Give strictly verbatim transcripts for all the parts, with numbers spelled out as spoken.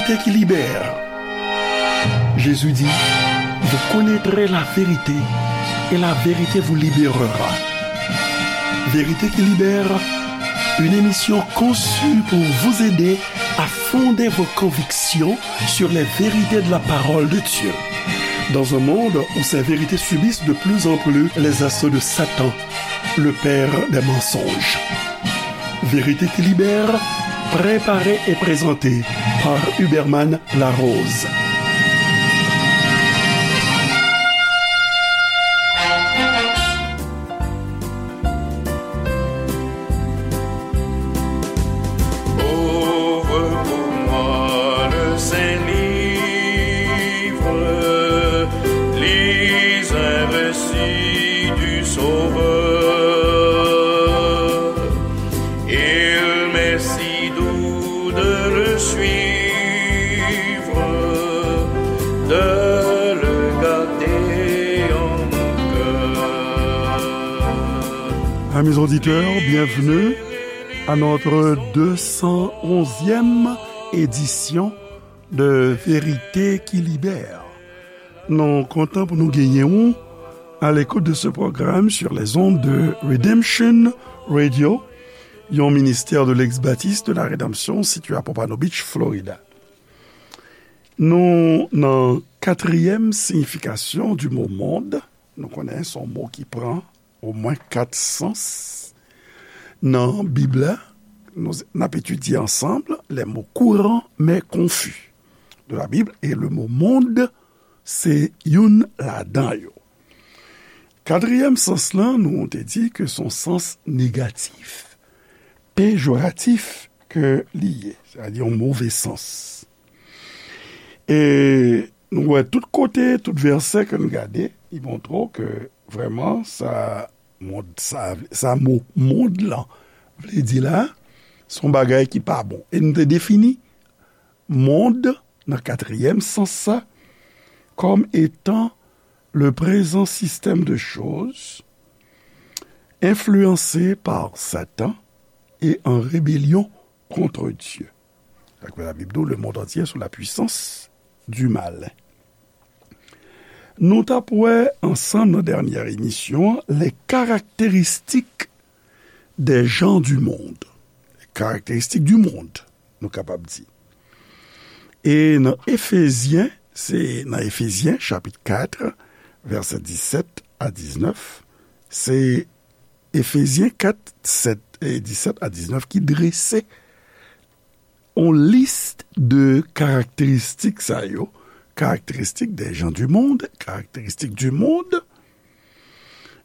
Vérité qui libère. Jésus dit, vous connaîtrez la vérité et la vérité vous libérera. Vérité qui libère, une émission conçue pour vous aider à fonder vos convictions sur les vérités de la parole de Dieu. Dans un monde où ces vérités subissent de plus en plus les assauts de Satan, le père des mensonges. Vérité qui libère, préparée et présentée par Huberman Larose. Ouvre pour moi le Saint-Livre, lis un récit du Sauveur. Il m'est si doux de le suivre, de le garder en mon cœur. Amis auditeurs, bienvenue à notre deux cent onzième édition de Vérité qui libère. Nou kontan pou nou genyen ou à l'écoute de ce programme sur les ondes de Redemption Radio, yon ministè de l'ex-baptiste de la rédemption situé à Pompano Beach, Florida. Nou nan katriyèm siyifikasyon du mot monde. Nou konnen se yon mo ki pran omwen kat sans nan Bib la. Nou, n ap etidye ansanm les mots courants mais confus de la Bible, et le mot monde se youn ladan yo. Katriyèm sans lan, nou te di ke se yon sans negatif, pejoratif ke li ye, sètadi yon move sans. E nou wè tout kote, tout vèsè ke nou gade, li montre w ke vrèman sa mond, sa, sa mo mond lan vle di la, se yon bagay ki pa bon. E nou te defini mond nan katriyèm sans sa kòm etan le présent système de choses influencé par Satan et en rébellion contre Dieu. Sa k fè Labib di w, le monde entier est sous la puissance du malin. Nou t ap wè ansanm nan dènyè emisyon an les caractéristiques des gens du monde. Les caractéristiques du monde, nou kapab di. E nan Efezyen, se nan Efezyen, chapit kat, vèsè disèt a diznèf, se Efezyen kat, sèt, e disèt a diznèf ki drese yon lis de karakteristik sa yo, karakteristik des gens du monde, karakteristik du monde.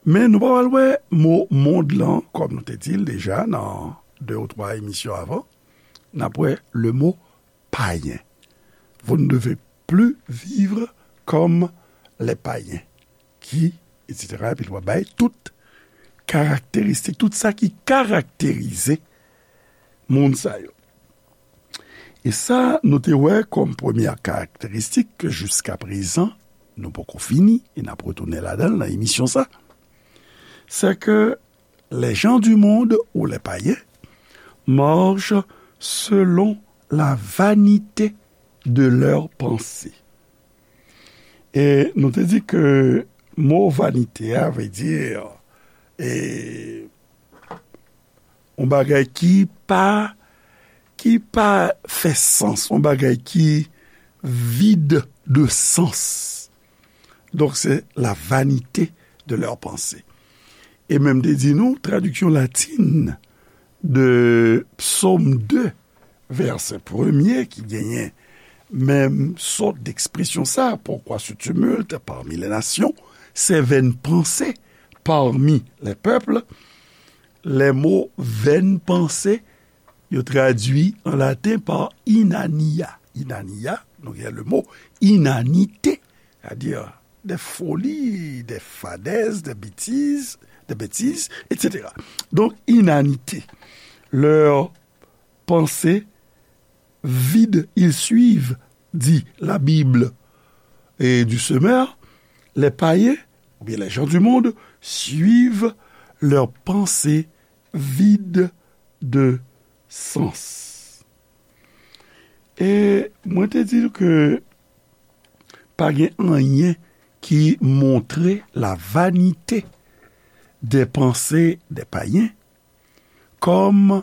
Men nou pa pral wè mo mond lan, kòm nou te di l deja nan de ou twa emisyon avan, n ap wè le mot païen. Vous ne devez plus vivre comme les païens. Qui, et cetera. Epi l va bay tout karakteristik, tout sa ki karakterize moun sa yo. E sa, nou te wè kòm premyè karakteristik ke jiska prezan, nou poko fini, e n ap retounen ladan l nan emisyon sa, c'est que les gens du monde ou les païens marchent selon la vanité de leurs pensées. E nou te di ke mo vanite a vle di, e, yon bagay ki pa, ki pa fè sans, yon bagay ki vide de sens. Donk, se la vanité de leurs pensées. E menm te di nou, tradiksyon latin de Psaume deux, vèsè premye ki genyen menm sòt d'ekspresyon sa, pourquoi se tumulte parmi les nations, ces vaines pensées parmi les peuples. Les mots vaines pensées, yo tradui an laten pa inania. Inania, nou gen le mo inanite, c'est-à-dire des folies, des fadaises, des bêtises, des bêtises, et cetera. Donc, inanité. Leurs pensées vides, ils suivent, dit la Bible, et du semeur, les païens, ou bien les gens du monde, suivent leurs pensées vides de sens. E mwen te di ke pa gen anyen ki montre la vanite dè panse dè payen kòm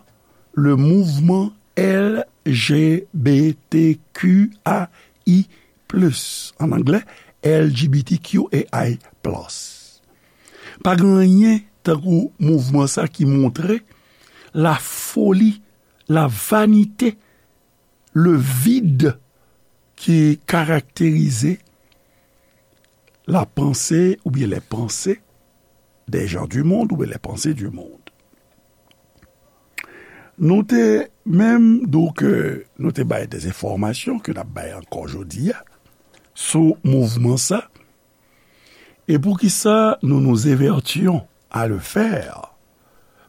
le mouvman L G B T Q I plus, an anglè, L G B T Q A I plus. Pa gen anyen tankou mouvman sa ki montre la foli, la vanite, le vide ki karakterize la panse oubyen les pensées des gens du monde oubyen les pensées du monde. Nou te menm, donk, euh, nou te bay des enfòmasyon ke n ap bay ankò jodi a sou mouvman sa. E poukisa nous nous évertuons à le faire?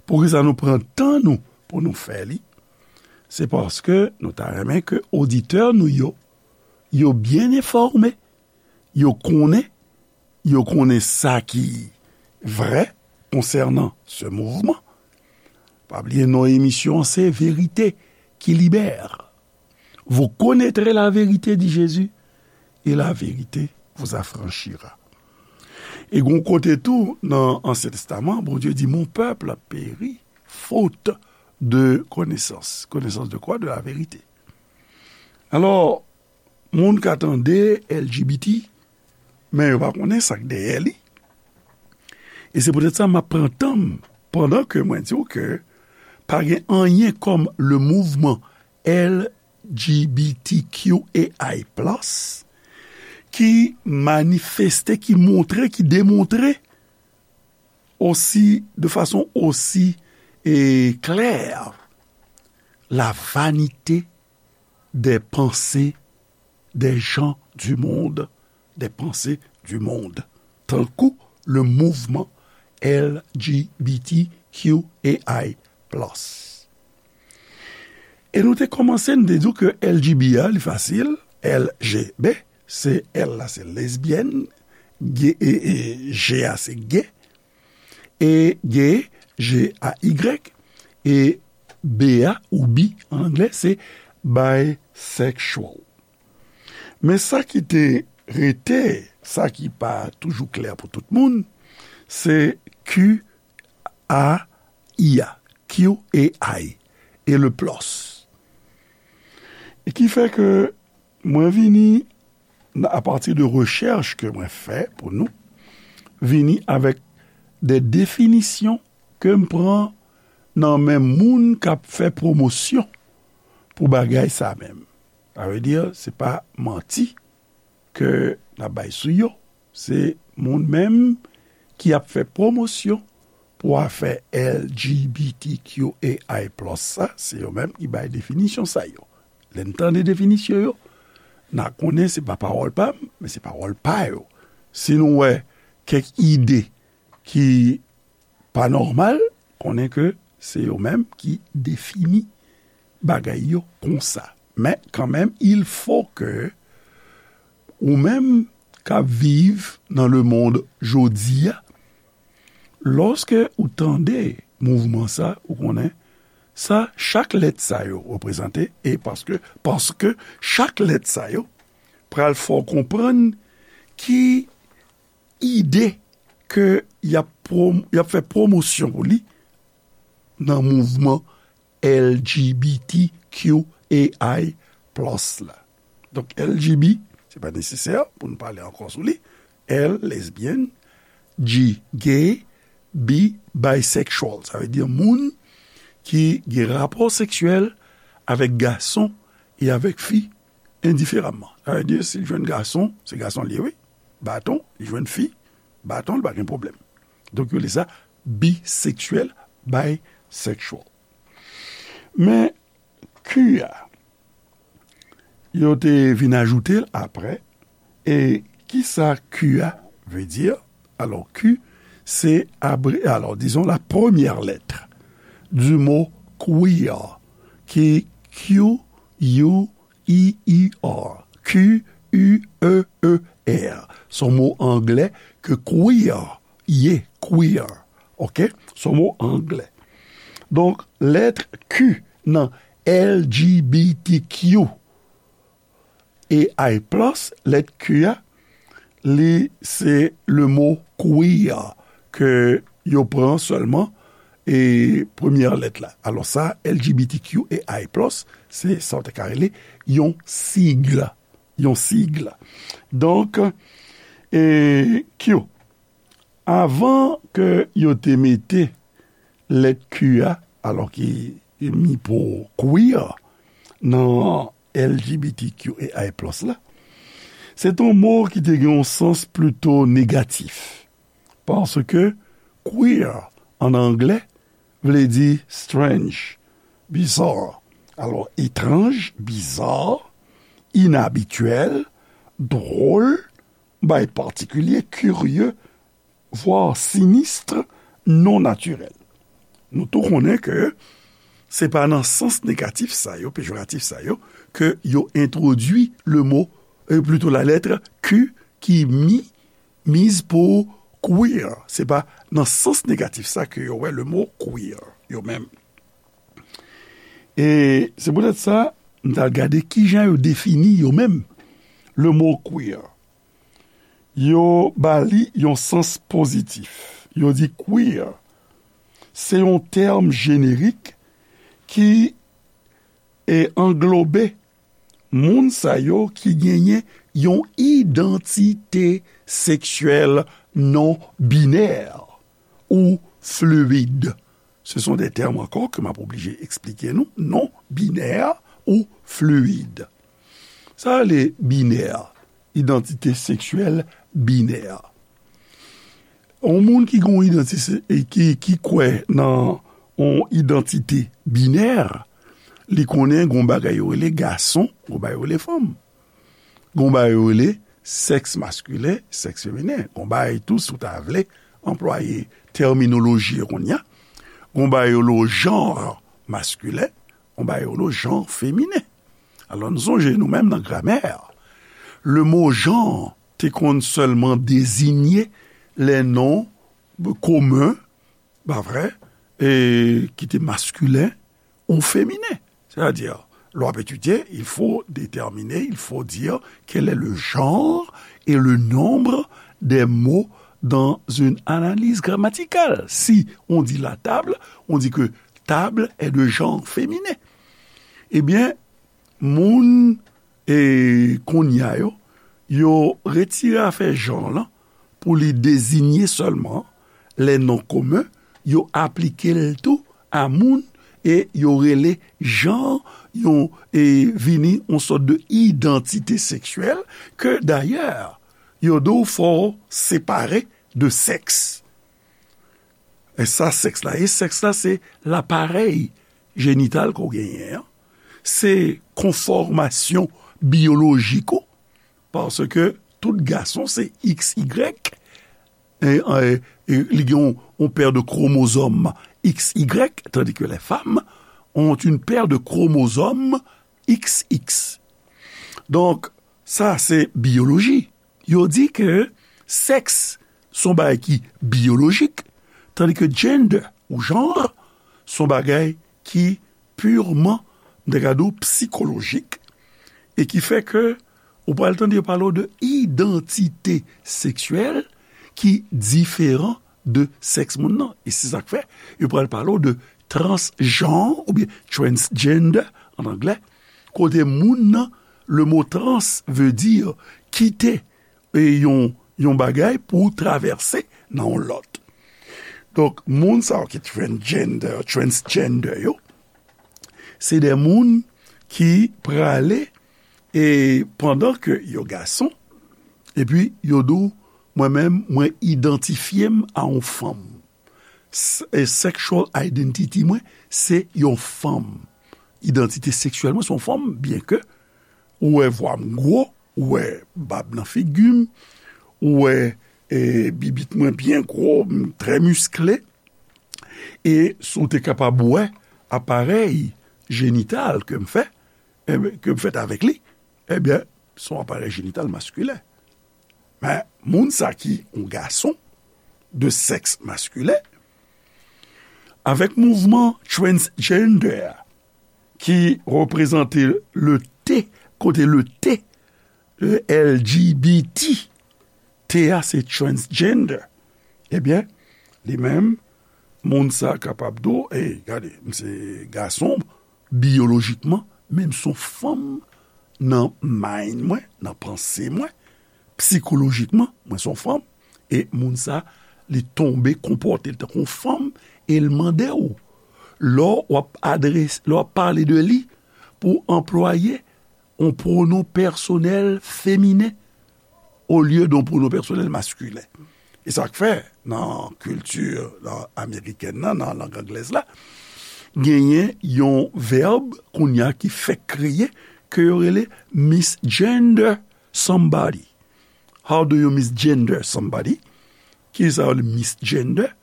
Poukisa nou pran tan nou pou nou fè li? Se paske nou ta renmen ke oditè nou yo, yo byen enfòme, yo konnen, yo konnen sa ki vrè konsènan se mouvman. Pa bliye non emisyon an se Vérité qui libère. Vous connaîtrez la vérité, dit Jésus, et la vérité vous affranchira. E gon kote tou nan Ansyen Testaman, Bondye di, mon peuple périt faute de connaissance. Connaissance de quoi? De la vérité. Alò, moun ka tande L G B T, men yo pa konnen sa k dèyè li. E se poutèt sa m ap pran tan m pandan ke mwen di w ke pa gen anyen kòm le mouvman L G B T Q A I plus ki manifeste, ki montre, ki demontre osi, de fason osi, e, klè, la vanite des pensées des gens du monde, des pensées du monde, tankou le mouvman L G B T Q A I plus. E nou te kòmanse, nou te di w ke L G B a, li fasil, L G B, se L la, se lesbyèn, G, e, e, G a, se gay, e gay, G A Y, e B a, ou bi an anglè, se bisexual. Men sa ki te rete, sa ki pa toujou klè pou tout moun, se Q A I a, Q A I, e le plus. E ki fè ke mwen vini, apati de rechèch ke mwen fè pou nou, vini avèk de definisyon ke m pran nan men moun k ap fè pwomosyon pou bagay sa menm. Sa vle di, se pa manti ke n ap bay sou yo. Se moun menm ki ap fè pwomosyon pou afè L G B T Q A I plus sa, se yo menm ki bay definisyon sa yo. Lè n tande definisyon yo, n a konnen se pa pawòl pa m, men se pawòl pa yo. Si nou wè kèk ide ki pa nòmal, konnen ke se yo menm ki defini bagay yo konsa. Men kanmenm, il faut que ou menm k ap viv nan le monde jodi a, lòske ou tande mouvman sa, ou konnen sa, chak lèt sa yo reprezante, e paske, paske chak lèt sa yo pral fè w konprann ki ide ke y ap pwom-, y ap fè pwomosyon pou li nan mouvman L G B T Q A I plus la. Donk, L G B, se pa nesesè pou nou pale ankò sou li. L, lesbyèn, G, gay, B, bisexual. Sa vle di moun ki gen rapò seksyèl avèk gason e avèk fi endiferamman. Sa vle di, si l jwenn gason, se gason l ye, wi. Baton, li jwenn fi, baton, li pa gen pwoblèm. Donk, yo rele sa biseksyèl, bisexual. Men, Q a, yo te vin ajoute l apre. E kisa Q a vle di? Alò, Q, se abre-, alò, disons la première lettre du mot queer, ki Q U E E R. Q U E E R. Se yon mo anglè ke queer ye, queer. Oke? Se yon mo anglè. Donk, lèt Q nan L G B T Q A I plus, lèt Q a, li se le mo queer ke yo pran sèlman e premyè lèt la. Alò sa, L G B T Q A I plus, se sa w te ka rele yon sig. Yon sig. Donk, e, Q, avan ke yo te mete lèt Q a, alò ki mi pou queer, nan L G B T Q A I plus la, se te yon mo ki te gen yon sans plito negatif. Paske queer, an anglè, vle di strange, bizarre. Alò, etranj, bizarre, inabityèl, dwòl, bay patikilye, kirye, vwa sinistre, non natirèl. Nou tou konnen ke se pa nan sans negatif sa yo, pejoratif sa yo, ke yo entwodui le mo, e plito la lèt Q ki mi, miz pou queer. Se pa nan sans negatif sa ke yo wè le mo queer, yo menm. E se poutèt sa, m t al gade kijan yo defini yo menm, le mo queer. Yo ba li yon sans pozitif. Yo di queer, se yon tèm jenerik ki, e, anglobe moun sa yo ki genyen yon idantite seksyèl non binè ou fluid. Ce sont des termes encore ke m ap oblije eksplike nou, non binè ou fluid. Sa rele binè, idantite seksyèl binè. Yon moun ki gen yon idantite, e ki, ki kwè nan yon idantite binè, li konnen gen yon bagay yo rele gason, gen yon bagay yo rele fanm. Gen yon bagay yo rele sèks maskilen, sèks feminen. Gen yon bagay tou, si w ta vle anplwaye tèminoloji yo kounye a, gen yon bagay yo rele janr maskilen, gen yon bagay yo rele janr feminen. Alò, nou sonje nou menm nan gramè, le mo janr te konn sèlman dezinye lè non komen, pa vre, e ki te maskilen ou feminen. Sètadi, lè w ap etidye, il faut déterminer, il faut dire quel est le genre et le nombre des mots dans une analyse grammaticale. Si on dit la table, on dit que table est de genre féminin. Ebyen, moun, e, kounye a yo, yo retire afè janr lan pou li dezinye sèlman lè non komen, yo aplike l tou a moun e yo rele janr, yon, e, vini yon sòt de idantite seksyèl ke dayè, yo di w fò w separe de sèks. E sa sèks la ye? Sèks la se laparèy jenital ke w genyen an. Se konfòmasyon biyolojik ou, paske tout gason se X Y, e, e, e li gen yon, yon pè de kromozòm X Y, tandis que les femmes ont une paire de chromosomes X X. Donk, sa se biyoloji. Yo di ke sèks se yon bagay ki biyolojik, tandis que gender ou janr se yon bagay ki pirman, m ta ka di w, psikolojik, e ki fè ke ou pral tande yo pale w de idantite seksyèl ki diferan de sèks moun nan. E se sa k fè yo pral pale w de transjanr oubyen transgender an anglè, kote moun nan, le mo trans veut dire kite, e, yon, yon bagay pou travèse nan yon lòt. Donk, moun sa yo ki transgender, transgender yo, se de moun ki prale, e pandan ke yo gason, epi yo di w, mwen menm, mwen idantifye m a yon fanm. S-, e sexual identity mwen, se yon fanm. Idantite seksyèl mwen, se yon fanm, byen ke ou wè vwa m gwo, ou wè bab nan figi m, ou wè, e, bibit mwen byen gwo, m trè miskle. E si w te kapab wè aparèy jenital ke m fè, e, ke m fèt avèk li, ebyen, se yon aparèy jenital maskilen. Men, moun sa ki yon gason de sèks maskilen, avèk mouvman transgender ki reprezante le T, kote le T L G B T, T a se transgender. Ebyen, li menm, moun sa kapab di w, "Ey, gade, m se gason biyolojikman, men m se yon fanm nan mind mwen, nan panse mwen, psikolojikman, mwen se yon fanm." E moun sa, li tonbe konpòte l tankou yon fanm, e l mande w, lè w ap adrese, lè w ap pale de li, pou w anplwaye yon pwonon pèsonèl feminen olye de yon pwonon pèsonèl maskilen. E sa k fè, nan kilti, nan amerikèn nan, nan lang anglèz la, genyen yon vèb kounye a ki fèk kreye, ke yo rele misgender somebody. How do you misgender somebody? Kisa yo rele misgender?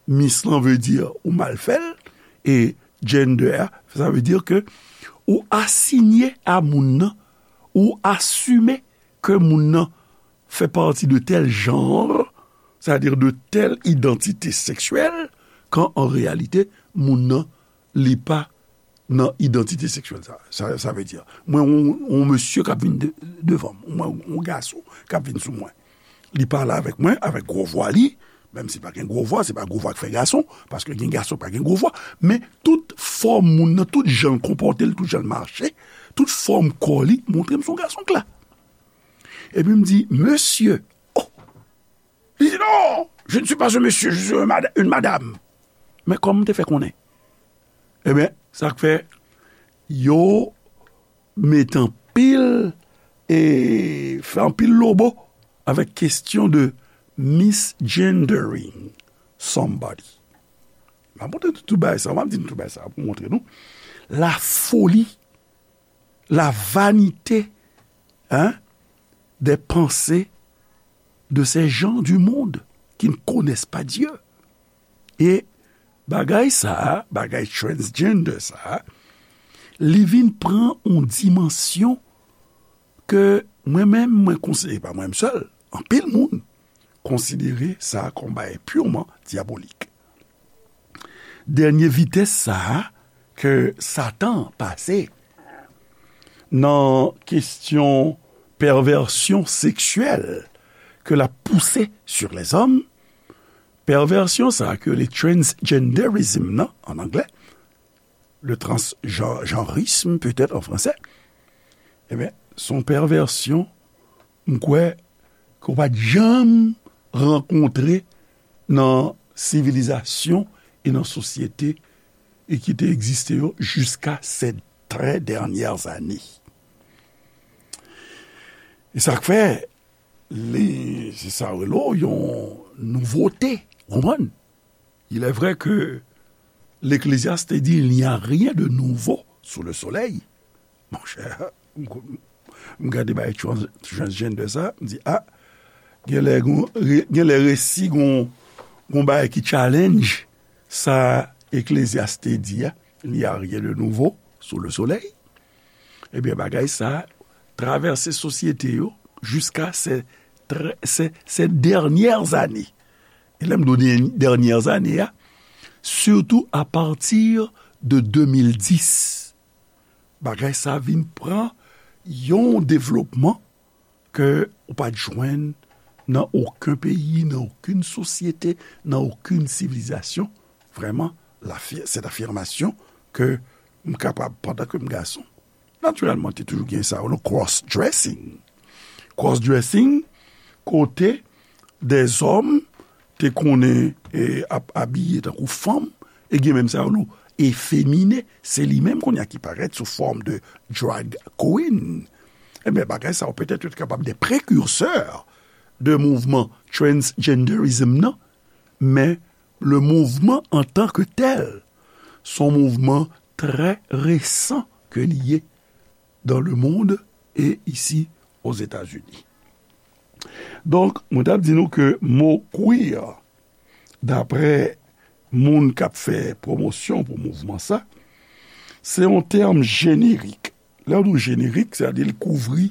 Mis lan vle di ou mal fè l, e gender a, sa vle di ke ou asinye a moun nan, ou asime ke moun nan fè pati de tèl janr, sètadi de tèl idantite seksyèl, kan an reyalite, moun nan, li pa nan idantite seksyèl sa. Sa, sa vle di, mwen, yon, yon mesye k ap vin de-, devan m, mwen, yon gason k ap vin sou mwen. Li pale avèk mwen, avèk gwo vwa li, menm si pa gen gwo vwa, se pa gwo vwa k fè gason, paske gen gason pa gen gwo vwa, men tout fòm moun nan, tout jan l konpòte l, tout jan l mache, tout fòm kò li, montre m se yon gason k la. Epi m di, "Mesye." Oh! Li di, "Non, je ne suis pas un monsieur, je suis un mada-, une madame." Men kòman m te fè konnen? Ebyen, sa k fè yo mete anpil, e fè anpil lobo avèk kesyon de misgendering somebody. M ap montre nou tout bagay sa, m ap di nou tout bagay sa pou montre nou la foli, la vanite, hein, des pensées de ces gens du monde qui ne connaissent pas Dieu. E bagay sa a, bagay transgender sa a, li vin pran yon dimansyon ke mwen menm, mwen konsidere, pa mwen menm sèl, anpil moun konsidere sa kòm bagay pirman dyabolik. Dènye vitès sa a ke Satan pase nan kesyon pèvèsyon seksyèl ke l ap pouse sur les hommes, pèvèsyon sa a ke le transgenderism nan, an anglè, le transgenrisme peut-être en français, ebyen, se yon pèvèsyon, m kwè, ke w pa t janm rankontre nan sivilizasyon e nan sosyete e ki te egziste yo jiska ces très dernières années. E sa k fè, li, se sa yo rele yon nouvote, w konprann? Il est vrai que l'Ecclésiaste te di, "Il n'y a rien de nouveau sous le soleil." Monchè, m, m gade bay trans-, transgender sa, m di, "Ah, genlè gon, re-, genlè resi gon, gon bagay ki challenge sa Ecclésiaste di a, 'Il n'y a rien de nouveau sous le soleil.'" Ebyen, bagay sa travèse sosyete yo jiska se, se, se dènyè ane. E lè m di w dènyè ane a, sitou apati de de mil dis, bagay sa vin pran yon devlopman ke ou pa t jwenn nan okenn peyi, nan okenn sosyete, nan okenn sivilizasyon. Vrèman, lafi-, cette affirmation ke m kapab, pandan ke m gason, natirèlman, te toujou gen sa, yo rele cross-dressing. Cross-dressing, kote dèzòm te konnen, e, ap abiye tankou fanm, e gen menm sa yo rele efemine, se li menm kounye a ki parèt sou fòm de drag queen. Ebyen, bagay sa yo petèt yo te kapab de prekirsè de mouvman transgenderism nan, men le mouvman an tan ke tèl, se yon mouvman trè resan ke li ye dans le monde et ici aux États-Unis. Donk, mwen t ap di nou ke mo queer, daprè moun k ap fè pwomosyon pou mouvman sa, se yon tèm jenerik. Lè w di jenerik, sètadi l kouvri,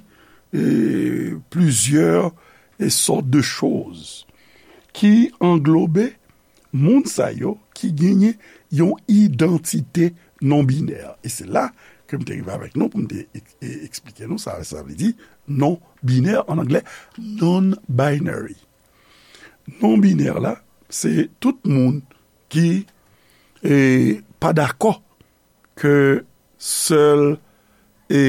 e, plizyè, e, sòt de choz ki anglobe moun sa yo ki genyen yon idantite non-binè. E se la ke m te rive avèk nou pou m te ek- e- eksplike nou sa sa vle di non binè, an anglè, non-binary. Non binè la, se tout moun ki e, pa dakò ke sèl, e,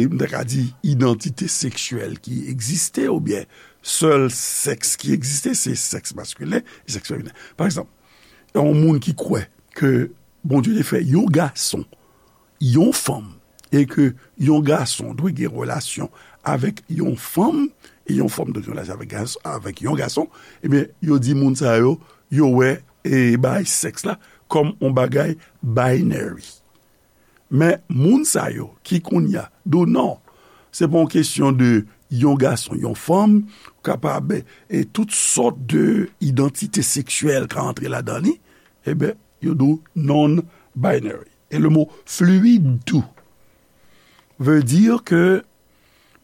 m ta ka di, idantite seksyèl ki egziste, oubyen sèl sèks ki egziste, se sèks maskilen e sèks feminen. Pa egzanp, yon moun ki kwè ke Bondye te fè yon gason, yon fanm, e ke yon gason dwe gen relasyon avèk yon fanm, e yon fanm dwe gen relasyon avèk, gas- avèk yon gason, ebyen, yo di moun sa yo, yo wè e, bay sèks la kòm yon bagay binary. Men moun sa yo ki kounye a di w non, se pa yon kesyon de yon gason, yon fanm, ou kapab, e tout sòt de idantite seksyèl ka antre ladan li, ebyen, yo di w non-binary. E le mo fluid tou veut dire que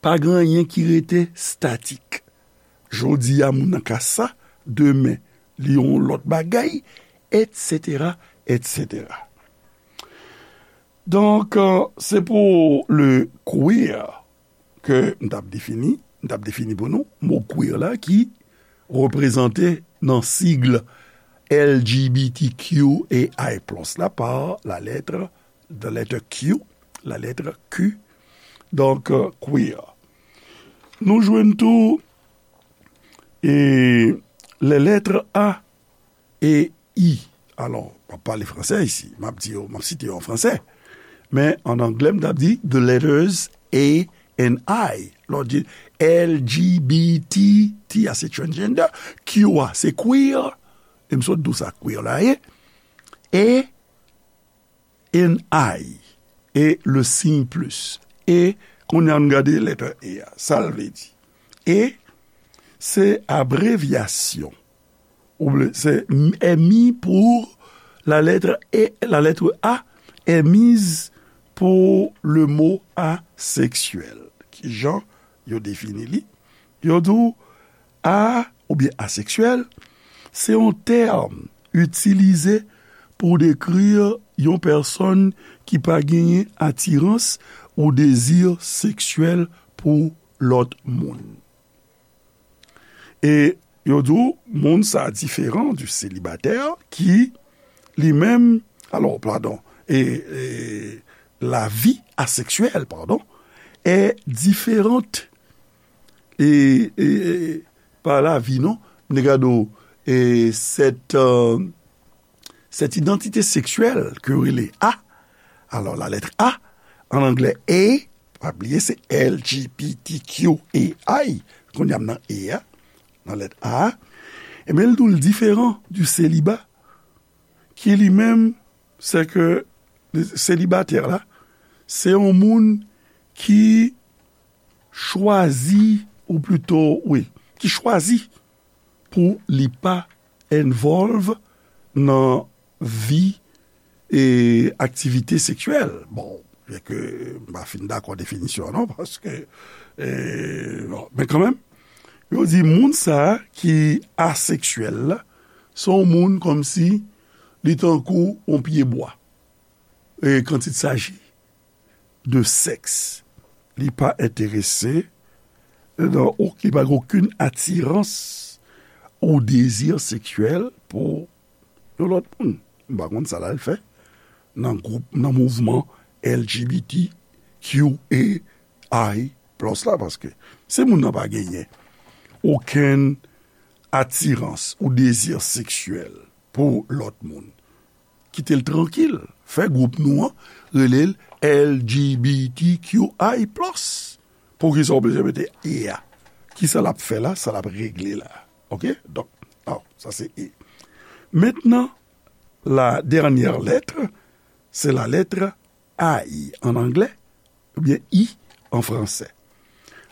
pa gen anyen ki rete statik. Jodi a, moun nan ka sa, demen, li yon lòt bagay, etsetera, etsetera. Donk, euh, se pou le queer ke m t ap defini, m t ap defini pou nou, mo queer la ki reprezante nan sigle L G B T Q A I plus la pa la lettre, the letter Q, la lettre Q, donk, euh, queer. Nou jwenn tou e les lettres A e I. Alò, m ap pale fransè isi. M ap di yo, m ap site yo an fransè. Men an anglè, m t ap di the letters A and I. Lè w di L G B T, T a se transgender, Q a se queer. E m sot di w sa queer la ye. E and I. E le siy plis. E, kounye a, nou gade lèt E a. Sa l vle di? E, se abrevyasyon. Oubyen, se M I pou la lettre E, la lettre A est mise pour le mot asexuel. Kijan yo defini li? Yo di w a oubyen aseksyèl, se yon tèm itilize pou dekri yon pèsòn ki pa genyen atirans ou dezi seksyèl pou lòt moun. E yo di w, moun sa diferan di selibatè ki, li menm, alò, padon, e, e, la vie asexuelle, pardon, est différente. E, e, e, pa lavi, non. M te gade w, e, cette, euh, cette identité sexuelle ke yo rele A. Alò, la lettre A, an anglè, A, pa bliye, se L G B T Q A I. Kounye a m nan E a, nan lèt A a. Ebyen, l di w l diferan du célibat, ki li menm, se ke selibatè la, se yon moun ki chwazi, ou plito, wi, ki chwazi pou li pa involve nan vi e aktivite seksyèl. Bon, byen ke m pa fin dakò definisyon an, non, paske, e, bon, men kanmenm, yo di moun sa a ki aseksyèl la, se yon moun kòmsi li tankou yon pye bwa. E quand il s'agit de sexe, li pa enterese nan, li pa gen okenn atirans ou dezi seksyèl pou yon lòt moun. M pa konn sa l al fè nan gwoup, nan mouvman L G B T Q A I plus la, paske si moun nan pa genyen okenn atirans ou dezi seksyèl pou lòt moun, kite l trankil. Fè gwoup nou an rele l L G B T Q I plus. Poukisa w bezwen mete E a? Kisa l ap fè la? Sa l ap regle la? Oke? Donk, alò, sa se E. Mentnan, la dènyè lèt, se la lettre I an anglè, oubyen I an fransè.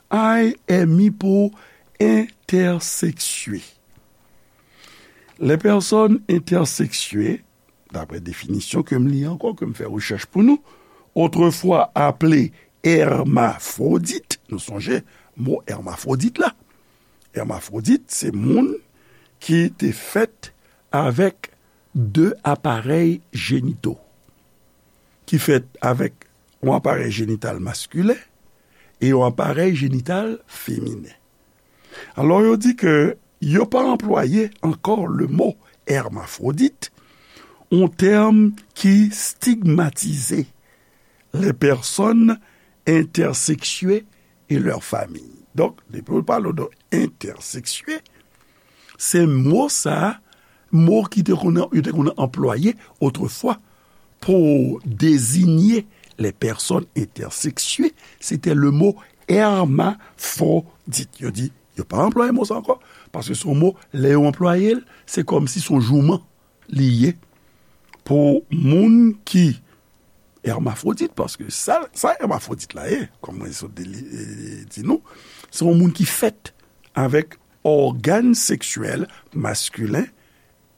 I est mis pour intersexué. Les personnes intersexuées, daprè definisyon ke m li ankò, ke m fè rechèch pou nou, autrefois appelées hermaphrodites, nou sonje mo hermafwodit la. Hermafwodit, se moun ki te fèt avèk de aparèy jenito, ki fèt avèk yon aparèy jenital maskilen e yon aparèy jenital feminen. Alò, yo di ke yo pa anplwaye ankò le mo hermaphrodite, yon tèm ki stigmatize les personnes intersexiées et leurs familles. Donk, depi w pale de entèseksye, se mo sa a, mo ki te konn, yo te konn anplwaye otrefwa pou dezinye les personnes intersexiées, se te le mo hermaphrodite. Yo di, yo pa anplwaye mo sa ankò, paske se yon mo, lè yo anplwaye l, se kòmsi se yon jouman li ye pou moun ki hermafwodit, paske sa, sa hermafwodit la ye, kòm mwen sot de li, e, di nou, se yon moun ki fèt avèk ògàn seksyèl maskilen,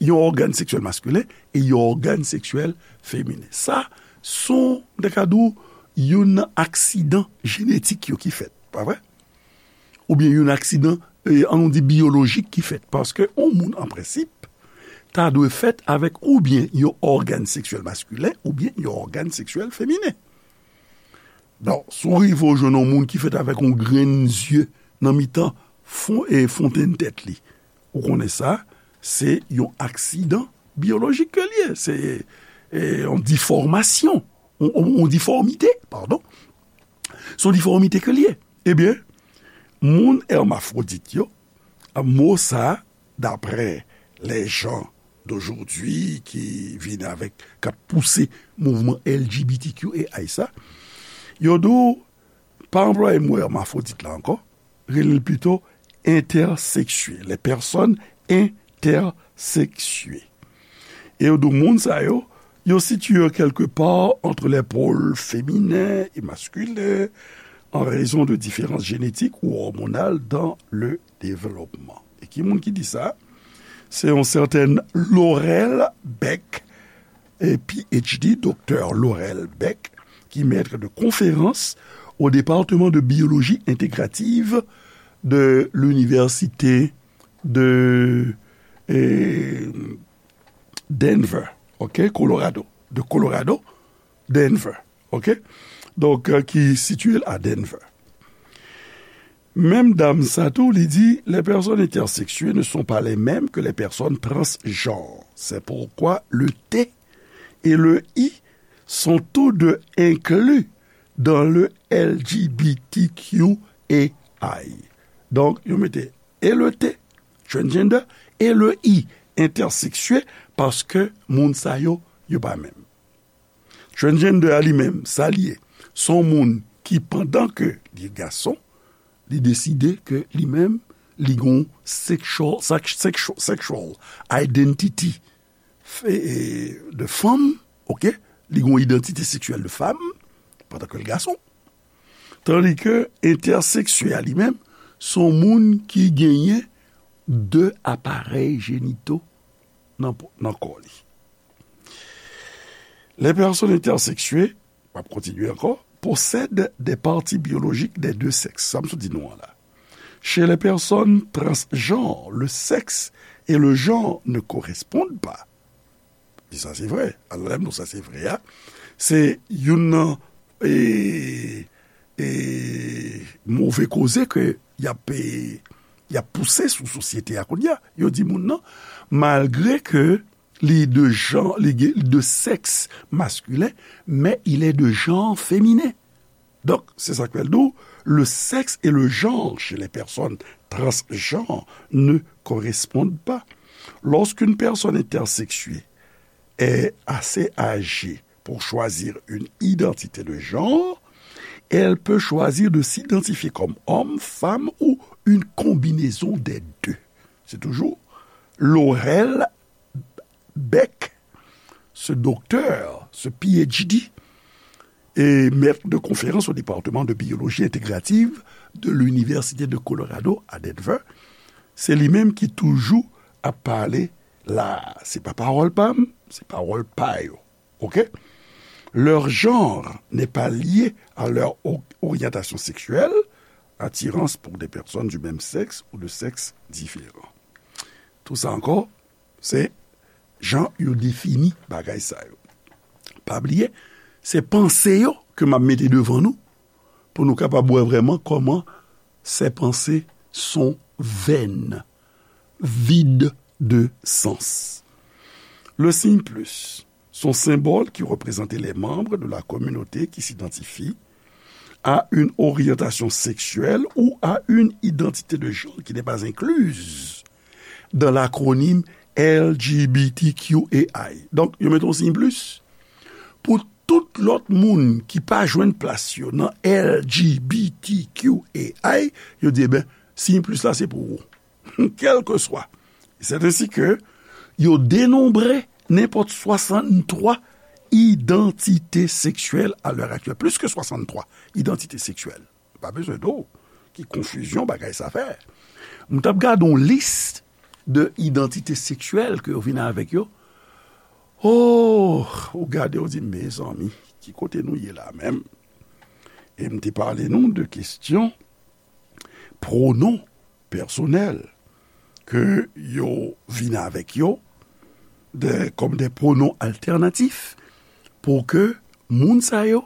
yon ògàn seksyèl maskilen e yon ògàn seksyèl feminen. Sa, se yon, m ta ka di w, youn nan aksidan jenetik yo ki fèt, pa vre? Oubyen youn aksidan, e, an nou di biyolojik ki fèt. Paske yon moun, an prensip, ta dwe fèt avèk oubyen yon ògàn seksyèl maskilen, oubyen yon ògàn seksyèl feminen. Bon, si w rive w jwenn yon moun ki fèt avèk yon grenn zye nan mitan fon, e, fontenn tèt li, ou konnen sa, se yon aksidan biyolojik ke l ye. Se, e, yon difòmasyon, yon, yon, yon difòmite, padon. Se yon difòmite ke l ye. Ebyen, moun hermafwodit yo, mo sa, daprè les gens d'aujourd'hui ki vin avèk, k ap pouse mouvman L G B T Q A I sa, yo di w, pa anplwaye mo hermafwodit la ankò, rele l pito entèseksye, les personnes intersexiées. E yo di w moun sa yo, yo sitiye yo quelque part entre les pôles féminins et masculins en raison de différences génétiques ou hormonales dans le développement. E ki moun ki di sa? Se yon sètèn Laurel Beck, e P H D, doktè Laurel Beck, ki maître de conférence au département de biologie intégrative de l'université de, e, Denver, ok, Colorado, de Colorado, Denver, ok? Donk, euh, ki sitiye l a Denver. Menm dam sa tou, li di, les personnes intersexuées ne sont pas les mêmes que les personnes transgenres. C'est pourquoi le T et le I sont tous deux inclus dans le L G B T Q A I. Donk, yo mete e le T, transgender, e le I, entèseksye, paske moun sa yo, yo pa menm. Transgender a li menm, sa li ye, se yon moun ki, pandan ke li gason, li deside ke li menm, li gon sexual, sex-, sexual, sexual identity, e, e, de fanm, ok? Li gon idantite seksyèl de fanm, pandan ke l gason. Tandi ke entèseksye a li menm, se yon moun ki genyen de aparèy jenito nan, nan kò li. Les personnes intersexuées, m ap kontinye ankò, possèdent des parties biologiques des deux sexes. Sa m sot di nou an la. Chez les personnes transgenres, le sexe et le genre ne correspondent pas. Di sa se vre. Alò, lè m di w sa se vre a, se youn nan, e, e, move koze ke y ap, e, y ap pouse sou sosyete a kounye a. Yo di moun nan, malgre ke li de jan, li gen, de sèks maskilen, men il est de genre féminin. Donc, c'est ça qu'elle dit, le sexe et le genre chez les personnes transgenres ne correspondent pas. Lorsqu'une personne intersexuée est assez âgée pour choisir une identité de genre, elle peut choisir de s'identifier comme homme, femme ou une combinaison des deux. C'est toujours Laurel Beck, ce docteur, ce P H D, et maître de conférence au département de biologie intégrative de l'Université de Colorado à Denver, se li menm ki toujou ap pale la. Se pa pawòl pa m, se pawòl pa yo. Ok? Leur genre n'est pas lié à leur o-, orientation sexuelle, attirance pour des personnes du même sexe ou de sexe différent. Tout sa ankò, se jan yo defini bagay sa yo. Pa bliye, se panse yo ke m ap mete devan nou, pou nou kapab wè vrèman kòman ces pensées sont vaines, vides de sens. Le signe plus, son symbole qui représentait les membres de la communauté qui s'identifient à une orientation sexuelle ou à une identité de genre qui n'est pas incluse dans l'acronyme L G B T Q A I. Donk, yo mete yon siy plis pou tout lòt moun ki pa jwenn plas yo nan L G B T Q A I, yo di, eben, siy plis la se pou ou. Kèlkeswa. C'est ainsi que yo denonbre nenpòt swasanntwa idantite seksyèl a lè aktyèl. Plis ke swasanntwa idantite seksyèl. Pa bezwen do ki konfizyon bagay sa fè. M t ap gade yon lis de idantite seksyèl ke yo vin avèk yo. Oh, ou gade, ou di, mezanmi, ki kote nou ye la menm? E m te pale nou de kesyon pwonon pèsonèl ke yo vin avèk yo de, kòm de pwonon altènatif pou ke moun sa yo,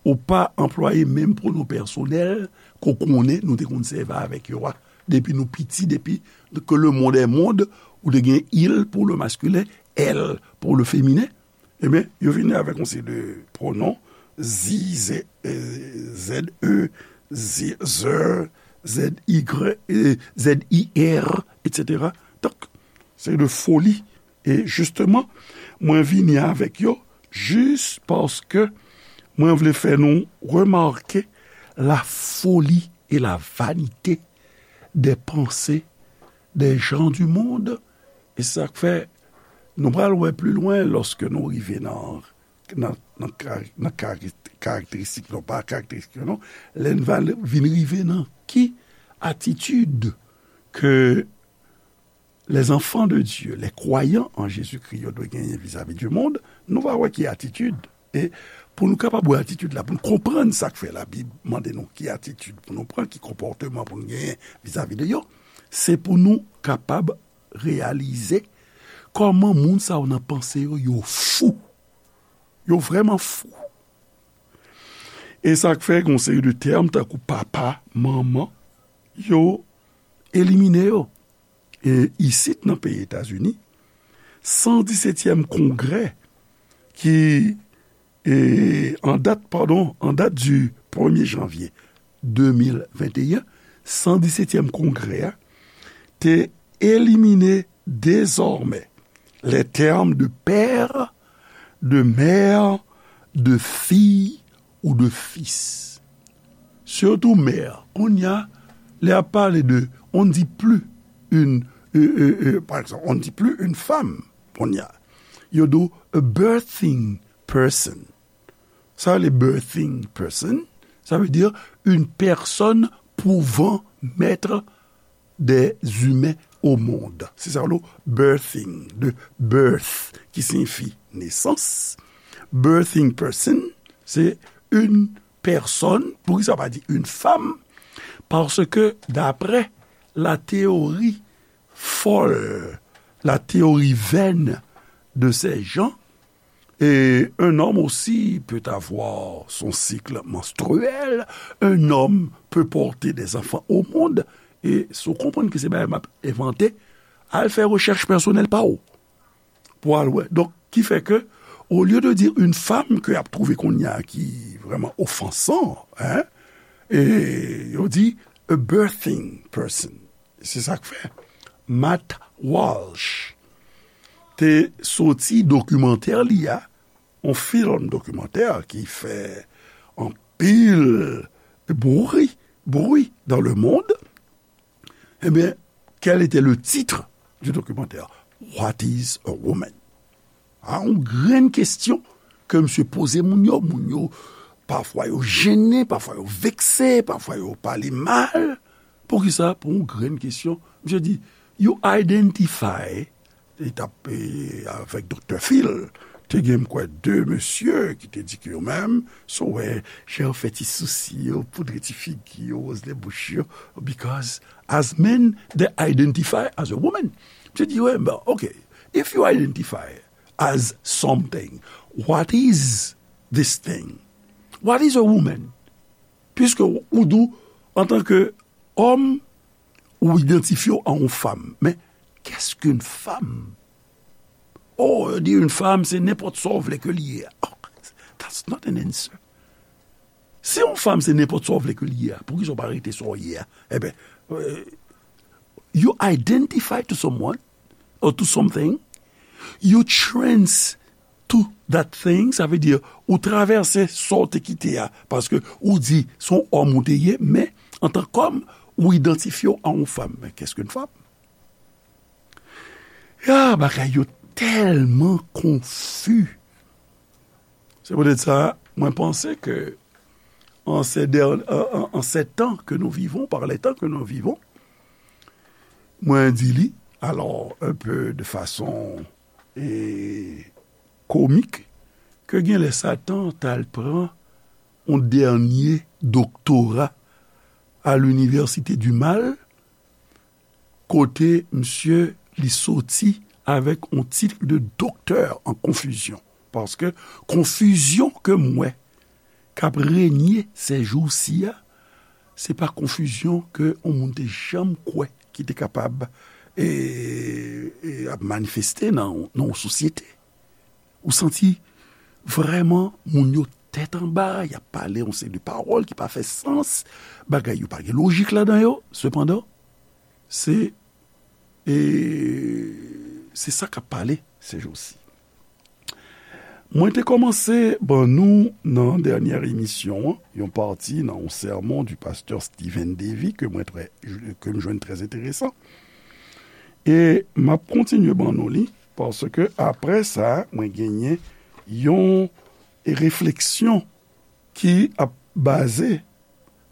ou pa anplwaye menm pwonon pèsonèl ke w konnen nou te konn sèvi avèk yo a. Depi nou piti, depi que le monde est monde, ou te gen il pour le masculin, elle pour le féminin. Ebyen, yo vini avèk yon seri de pwonon, zi, ze, eh, ze, ze, ze, i, eh, ze, i, r, etsetera. Donk, se de foli. E jisteman, mwen vini avèk yo jis paske mwen vle fè nou remake la folie et la vanité des pensées des gens du monde. E sa k fè, nou pral wè pli lwen lòske nou rive nan, nan, nan kari-, nan kari-, karakteristik, non, pa karakteristik, non, lè n va vin rive nan ki atitid ke les enfants de Dieu, les croyants en Jésus-Christ, yo dwe genyen vizavi du monde, nou va wè ki atitid. E pou nou kapab wè atitid la, pou nou konprann sa k fè Labib mande nou ki atitid pou nou pran, ki konpòteman pou nou genyen vizavi de yo, se pou nou kapab reyalize kòman moun sa yo nan panse yo, yo fou. Yo vrèman fou. E sa k fè gen yon seri de tèm tankou papa, manman, yo elimine yo. E isit nan peyi Etazini, san disetyèm kongrè ki, e, an dat, padon, an dat du premye janvye de mil venteyen, san disetyèm kongrè a te elimine dezòmè les termes de père, de mère, de fille ou de fils. Surtout mère. Kounye a, lè y ap pale de, on ne dit plus une, euh, euh, euh, par exemple, on ne dit plus une femme, kounye a. Yo di w a birthing person. Sa, le birthing person, ça veut dire une personne pouvant mettre des humains au monde. Se sa le birthing, de birth, ki siyifi nesans. Birthing person, se une personne, poukisa pa di une femme? Paske, daprè la théorie folle, la théorie vaine de ces gens, et un homme aussi peut avoir son cycle menstruel, un homme peut porter des enfants au monde, e si w konprann ke se bagay m ap envante, al fè rechèch pèsonèl pa w pou al wè. Donk, ki fè ke, au lieu de dire une femme ke y ap twouve kounye a ki vrèman ofansan, hein, e yo di a birthing person. Se sa k fè Matt Walsh te soti dokimantè li a, yon fim dokimantè ki fè anpil bri, bri dans le monde. Ebyen, quel était le titre du documentaire? What is a woman? A, yon grenn kesyon ke misye poze moun yo. Moun yo, pafwa yo jennen, pafwa yo vekse, pafwa yo pale mal. Poukisa? Pou yon grenn kesyon. Misye di, you identify, li t ap, e, avèk Doktè Phil, te gen, m kwè, de mesye ki te di ke yo menm, si w wè jan yo fè ti sousi yo, poudre ti figi yo, woz lè bouch yo, because as men, they identify as a woman. Misye di, wè, bon, ok, if you identify as something, what is this thing? What is a woman? Piske ou, ou di w, antanke òm, ou idantifye w a yon fanm. Men, qu'est-ce qu'une femme? Oh, yo di yon fanm, se nenpòt sa w vle ke li ye. Oh, that's not an answer. Si yon fanm se nenpòt sa w vle ke li ye a, poukisa w pa rete sa w ye a? Eben, euh, you identify to someone or to something, you trans to that thing, sa vle di, ou travèse sa w te kite a, paske ou di se yon òm ou te ye, men antan kòm, ou idantifye w a yon fanm. Men qu'est-ce qu'une femme? Ya, bagay yo tèlman konfi. Se poutèt sa, mwen panse ke en ces der-, en, en, en ces temps que nous vivons, par les temps que nous vivons, mwen di li, alò, un peu de façon, e, komik, ke genlè Satan t al pran yon dènye doktora à l'université du mal, kote misye li soti avèk yon tit de doktè an konfizyon. Paske konfizyon ke m wè k ap renye sèjousi a, se pa konfizyon ke yon moun te janm kwè ki te kapab, e, e, ap manifeste nan, nan yon sosyete. Ou santi vrèman moun yo tèt anba, y ap pale yon seri de pawòl ki pa fè sans, bagay yo pa gen lojik ladan yo. Sepandan, se, e, se sa k ap pale sèjousi. Mwen te kòmanse ban nou nan dènyè emisyon an, yon pati nan yon sèmon du pasteur Stephen Davy ke mwen trè, ke m jwenn trè enteresan. E m ap kontinye ban nou li, paske apre sa, mwen genyen yon refleksyon ki ap baze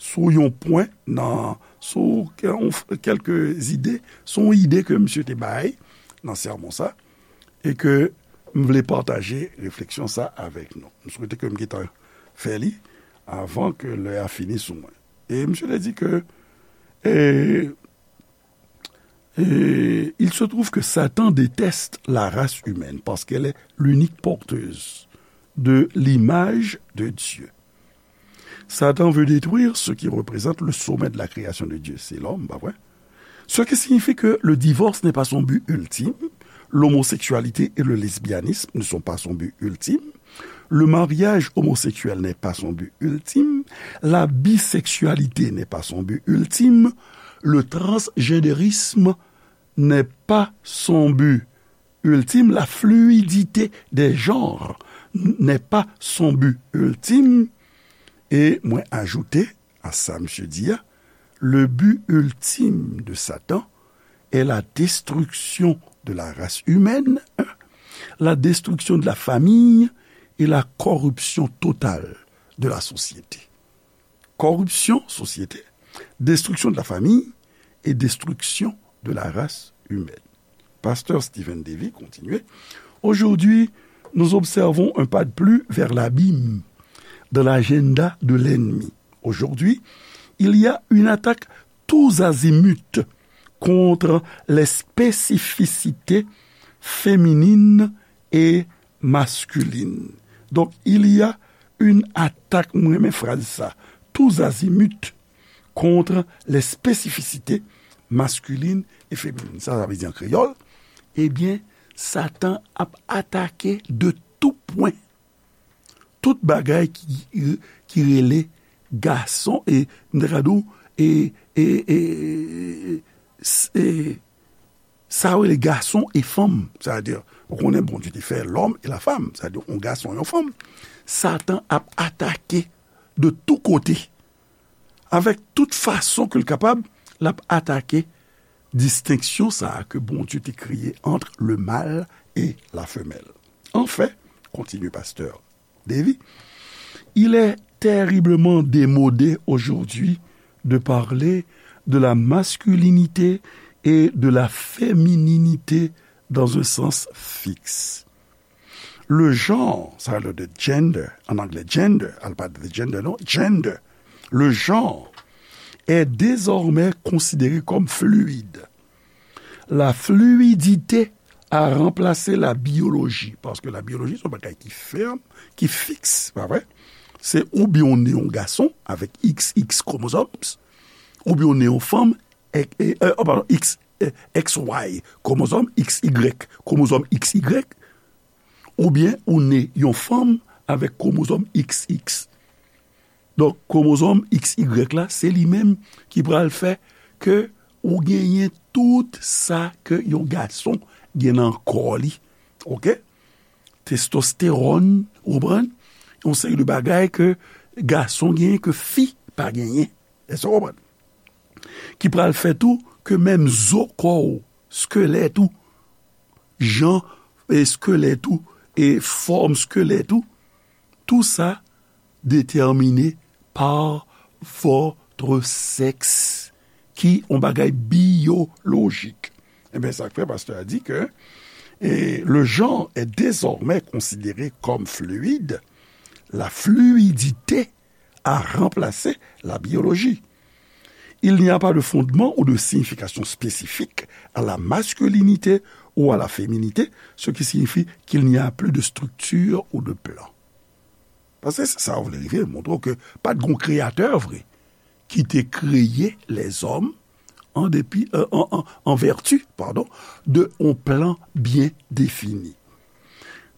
sou yon pwen nan, sou kè-, kèlke ide, sou yon ide ke misye te bay nan sèmon sa, e ke m vle pataje refleksyon sa avèk nou. M swete ke m gentan fè li avan ke lè a fini sou mwen. E misye te di ke, e, e, il se trouve que Satan déteste la race humaine parce qu'elle est l'unique porteuse de l'image de Dieu. Satan veut détruire ce qui représente le sommet de la création de Dieu. C'est l'homme, pa vre? Ce qui signifie que le divorce n'est pas son but ultime, l'homosexualité et le lesbianisme ne sont pas son but ultime, le mariage homosexuel n'est pas son but ultime, la bisexualité n'est pas son but ultime, le transgenderisme n'est pas son but ultime, la fluidité des genres n'est pas son but ultime. E mwen ajoute a sa misye di a, le but ultime de Satan est la destruction de la race humaine, la destruction de la famille et la corruption totale de la société. Corruption, société, destruction de la famille et destruction de la race humaine. Pasteur Stephen Davy continue. Aujourd'hui, nous observons un pas de plus vers l'abîme dans l'agenda de l'ennemi. Aujourd'hui, il y a une attaque tous azimuts contre les spécificités féminines et masculines. Donc, il y a une attaque, mwen renmen fraz sa, tous azimuts contre les spécificités masculines et féminines. Sa, sa vle di an kreyòl, ebyen, Satan ap atake de tout pwen, tout bagay ki, ki rele gason, e, m ta ka di w, e, e, e, e, s-, e, sa yo rele gason e fanm. Sa vle di, ou konnen Bondye te fè l'homme et la femme, sa vle di, yon gason, yon fanm. Satan ap atake de tout kote, avèk tout fason ke l kapab, l ap atake distenksyon sa a ke Bondye te kreye entre le mâle et la femelle. Enfin, continue pasteur Davy, il est terriblement démodé aujourd'hui de parler de la masculinité et de la fémininité dans un sens fixe. Le genre, sa le de gender, en anglais gender, al pa de gender, non, gender. Le genre est désormais considéré comme fluide. La fluidité a remplacé la biologie, paske la biyoloji se yon bagay ki fèm, ki fiks, pa vre? Se oubyen ou ne yon gason avèk X X chromosomes, oubyen ou ne yon fanm, e, e, e, oh, padon, X, e, X Y chromosomes, X Y chromosomes X Y, oubyen ou ne yon fanm avèk chromosomes X X. Donk, chromosomes X Y la, se li menm ki pral fè ke ou genyen tout sa ke yon gason gen nan kò li. Oke? Testostewòn, ou konprann? Yon seri de bagay ke gason genyen, ke fi pa genyen. Èske w konprann? Ki pral fè tou ke menm zo kò w, skelèt ou, jan, e, skelèt ou, e fòm skelèt ou, tou sa déterminé par votre sexe, ki yon bagay biyolojik. Ebyen, sa k fè pastè a di ke, e, le genre est désormais considéré comme fluide, la fluidité a remplacé la biologie. Il n'y a pas de fondement ou de signification spécifique à la masculinité ou à la féminité, ce qui signifie qu'il n'y a plus de structure ou de plan. Paske se sa w vle rive, montre w ke pa t gon kreyatè vre ki te kreye lèzòm an depi, euh, an, an, an vèti, padon, de yon plan byen defini.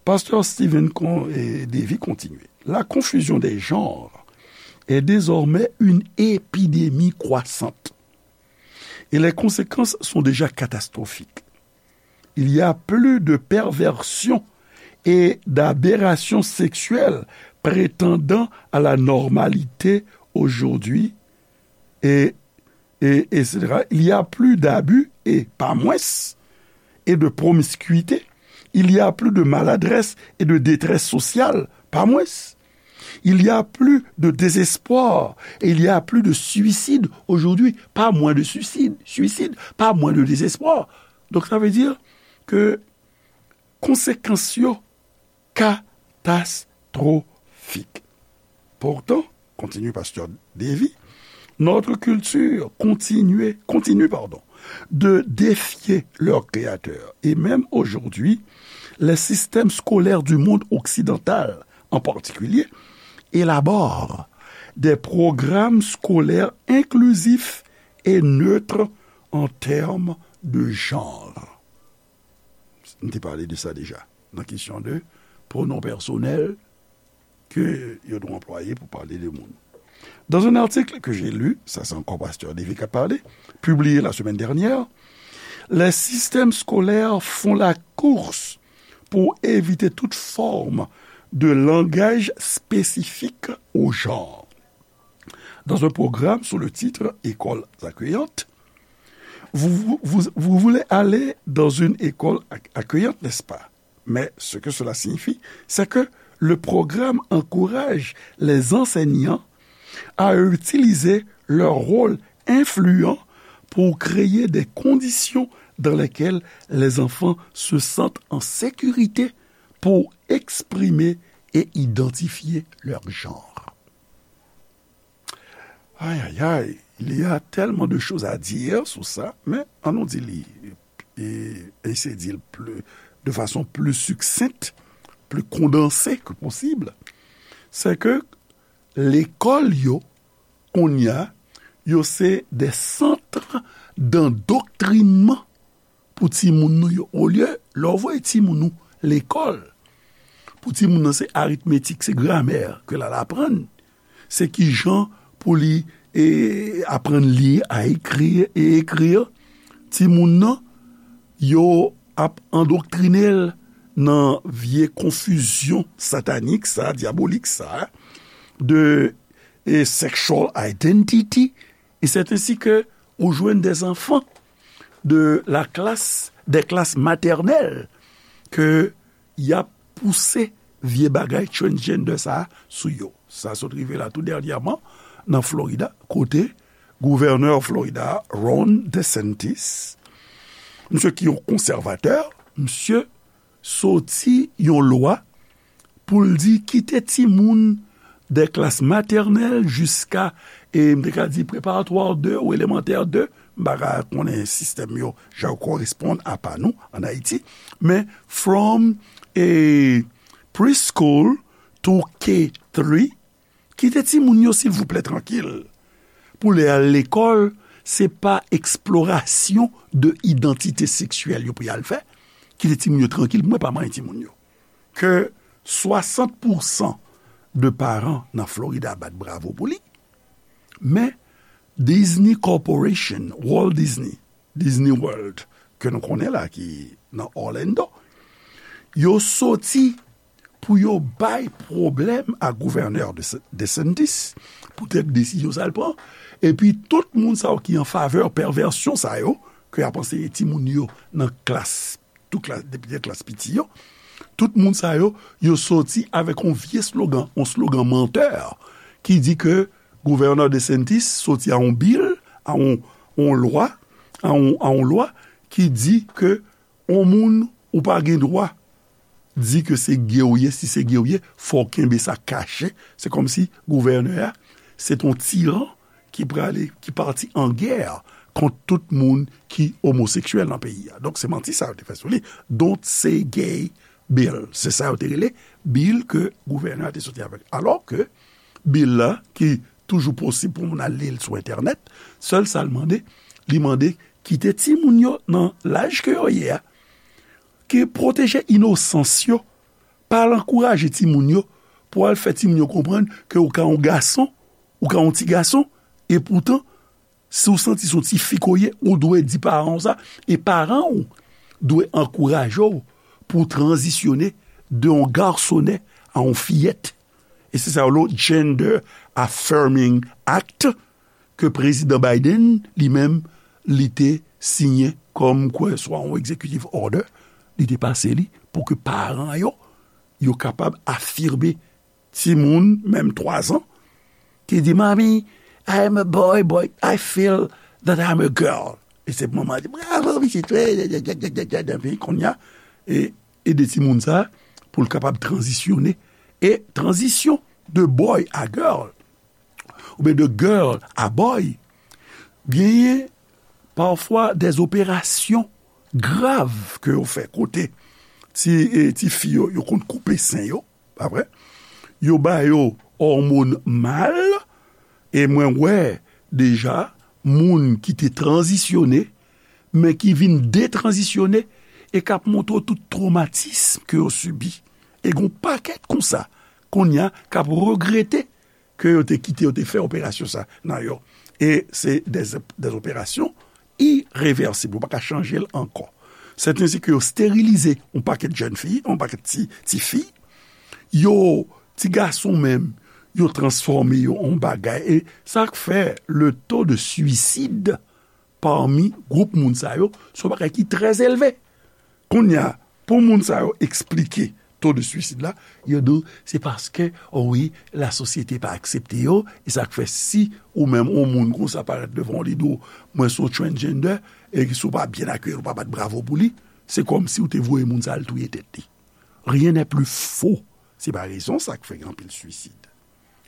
Pastè Stephen Con-, eh, Davey kontinye. La confusion des genres est désormais une épidémie croissante et les conséquences sont déjà catastrophiques. Il y a plus de perversions et d'aberrations sexuelles prétendant à la normalité aujourd'hui et, et, et cetera. Il y a plus d'abus et pas moins, et de promiscuité. Il y a plus de maladresse et de détresse sociale, pas moins. Il y a plus de désespoir et il y a plus de suicide aujourd'hui, pas moins de suicide, suicide, pas moins de désespoir. Donc ça veut dire que konsekans yo katastwofik. Pourtant, continue Pasteur Davey, notre culture continue, continue, pardon, de défier leur créateur. Et même aujourd'hui, les systèmes scolaires du monde occidental, en particulier, élaborent des programmes scolaires inclusifs et neutres en termes de genre. M te pale de sa deja, nan kesyon de pwonon pèsonèl ke yo dwe anplwaye pou pale de moun. Dans un article que j'ai lu, ça c'est encore Pasteur Davey qui a parlé, publié la semaine dernière, les systèmes scolaires font la course pour éviter toute forme de langage spécifique au genre. Dans un programme sous le titre Écoles accueillantes, vous, vous, vous, vous voulez aller dans une école ac-, accueillante, n'est-ce pas? Mais ce que cela signifie, c'est que le programme encourage les enseignants à utiliser leur rôle influent pour créer des conditions dans lesquelles les enfants se sentent en sécurité pour exprimer et identifier leur genre. Ay, ay, ay, il y a tellement de choses à dire sur ça, men ann nou di li, e, eseye di l pli, de fason pli siksent, pli kondanse ke posib, se ke lekòl yo, kounye a, yo se de sant dandoktrinman pou timoun nou yo. Olye, lè w voye timoun ou lekòl, pou timoun nan se aritmetik, se gramè ke l al aprann, se kijan pou li, e, aprann li a ekri e ekri, timoun nan, yo ap andoktrine l nan vye konfizyon satanik sa, dyabolik sa, de, e, sexual identity, et c'est ainsi que ou jwenn des enfants de la classe, des classes maternelles ke y ap pouse vye bagay transgender sa a sou yo. Sa sot rive la tou dènyèman nan Florida, kote gouvènè Florida, Ron DeSantis, misye ki yon konsèvatè, misye soti yon lwa pou l di kite timoun de klas matènèl jiska, e m te ka di preparatwa de ou elemantè de, m pa ka konnen sistèm yo jan yo koresponn a pa nou ann Ayiti, men from, e, preschool to K three, Kite timoun yo, silvouplè, trankil. Pou lè y al lekòl, se pa eksplorasyon de idantite seksyèl yo pou y al fè. Kite timoun yo trankil, mwen pa manyen timoun yo. Ke swasant pousan de paran nan Florida bat bravo pou li, men Disney Corporation, Walt Disney, Disney World, ke nou konnen la, ki nan Orlando, yo soti pou yo bay pwoblèm a gouvènè De, DeSantis, poutèt desizyon sa l pran, epi tout moun sa yo ki an favè pèvèsyon sa yo, ke y ap anseye timoun yo nan klas, tout klas, depi nan klas piti yo, tout moun sa yo, yo soti avèk yon vye slogan, yon slogan mantè, ki di ke gouvènè DeSantis soti a yon bil, a yon, yon lwa, a yon, a yon lwa ki di ke yon moun ou pa gen dwa di ke se gay w ye, si se gay w ye, fò w kenbe sa kache. Se kòmsi gouvènè a, se t on tiran ki prale, ki pati an gè kont tout moun ki omoseksyèl nan peyi a. Donk, se manti sa yo te fè sou li. Don't say gay bill. Se sa yo te rele bill ke gouvènè a te soti avèk. Alò ke bill la, ki toujou posib pou moun al li l sou entènèt, sèl sa l mande, li mande kite timoun yo nan laj ke yo ye a, ki pwoteje inosans yo, pa al ankouraje timoun yo pou al fè timoun yo konprann ke ou ka yon gason, ou ka yon ti gason, e poutan, si w santi se yon ti fi ke w ye, ou dwe di paran w sa, e paran w dwe ankouraje w pou w tranzisyone de yon gasonè a yon fiyèt. E se sa yo rele Gender Affirming Act, ke Prezidan Biden, li menm, li te siyen kòm kwè swa yon executive order, li te pase li pou ke paran yo, yo kapab afime timoun, menm twazan, ki di, "Mommy, I am a boy, but I feel that I'm a girl." E se manman di, "Bravo, pitit, wi, djadjadjadjadjad." Epi kounye a, e, ede timoun sa a pou l kapab tranzisyone. E tranzisyon de boy a girl, oubyen de girl a boy, genyen pafwa de operasyon grav ke yo fè kote ti, e, ti fi yo, yo konn koupe sen yo, pa vre? Yo ba yo òmòn mal, e mwen wè deja moun ki te tranzisyone, men ki vin detranzisyone, e k ap montre w tout twomatism ke yo sibi. E gen yon pakèt konsa, kounye a, k ap regrete ke yo te kite, yo te fè operasyon sa nan yo. E se de, de operasyon irevèsib, ou pa ka chanje l ankò. Sèten se ke yo sterilize yon pakèt jèn fi, yon pakèt ti, ti fi. Yo, ti gason menm, yo transfòme yo an bagay. E sa k fè le taux de suicide parmi gwoup moun sa yo, se yon bagay ki trè elve. Kounye a, pou moun sa yo eksplike taux de suicide la, yo di w se paske, o wi, lasosyete pa aksepte yo, e sa k fè si ou menm yon moun konsa parèt devan w, li di w, "Mwen se yon transgender," e si w pa byen akeyi l, ou pa bat bravo pou li, se kòmsi w te voye moun sa al touye tèt li. Rien n'est plus faux. Se pa rezon sa k fè gen anpil suisid.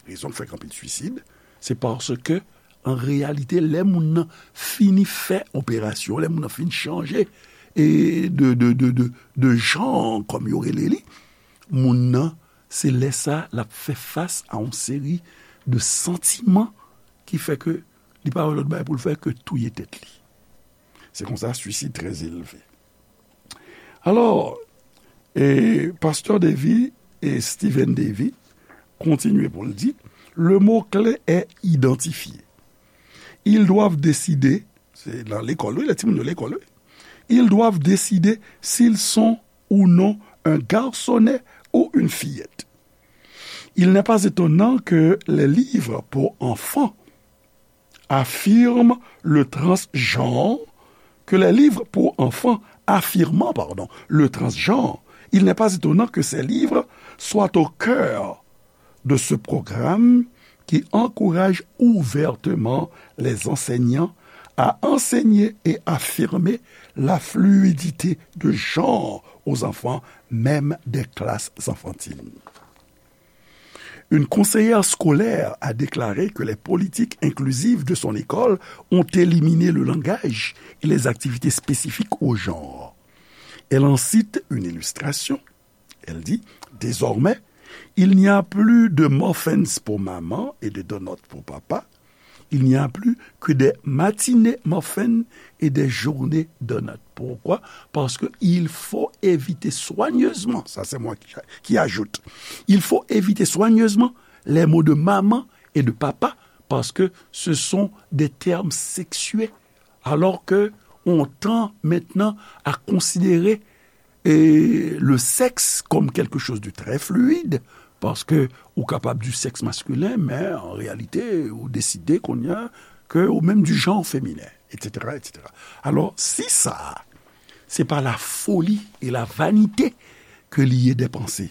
Rezon k fè gen anpil suisid, se paske, an reyalite, lè moun nan fini fè operasyon, lè moun nan fin chanje, e de, de, de, de, de jan, kòm yo rele li, moun nan, se lè sa, l ap fè fas a yon seri de santiman ki fè ke li pa wè lòt bagay pou l fè ke touye tèt li. Se konsa, suisid trè elve. Alò, e, Pastè Davy e Stephen Davy kontinye pou l di, le mot clé est identifié. Ils doivent décider, se nan lekòl, wi, lè timoun yo lekòl, wi. Ils doivent décider s'ils sont ou non un garçonnet ou une fillette. Il n'est pas étonnant que les livres pour enfants affirment le transgenre, que les livres pour enfants affirmant, pardon, le transgenre, il n'est pas étonnant que ces livres soient au cœur de ce programme qui encourage ouvertement les enseignants à enseigner et affirmer la fluidité de genre aux enfants, même des classes enfantines. Une conseillère scolaire a déclaré que les politiques inclusives de son école ont éliminé le langage et les activités spécifiques au genre. Elle en cite une illustration. Elle dit, désormais, Il n'y a plus de muffins pour maman et de donuts pour papa. Il n'y a plus que des matinées muffins et des journées donuts. Pourquoi? Parce que il faut éviter soigneusement, ça c'est moi qui, qui ajoute, il faut éviter soigneusement les mots de maman et de papa parce que ce sont des termes sexuels. Alors que on tend maintenant à considérer et le sexe comme quelque chose de très fluide, paske ou kapab di sèks maskilen, men an reyalite, ou deside kounye a ke ou menm du genre féminin, et cetera, et cetera. Alò, si sa, se pa la foli e la vanite ke li ye dè panse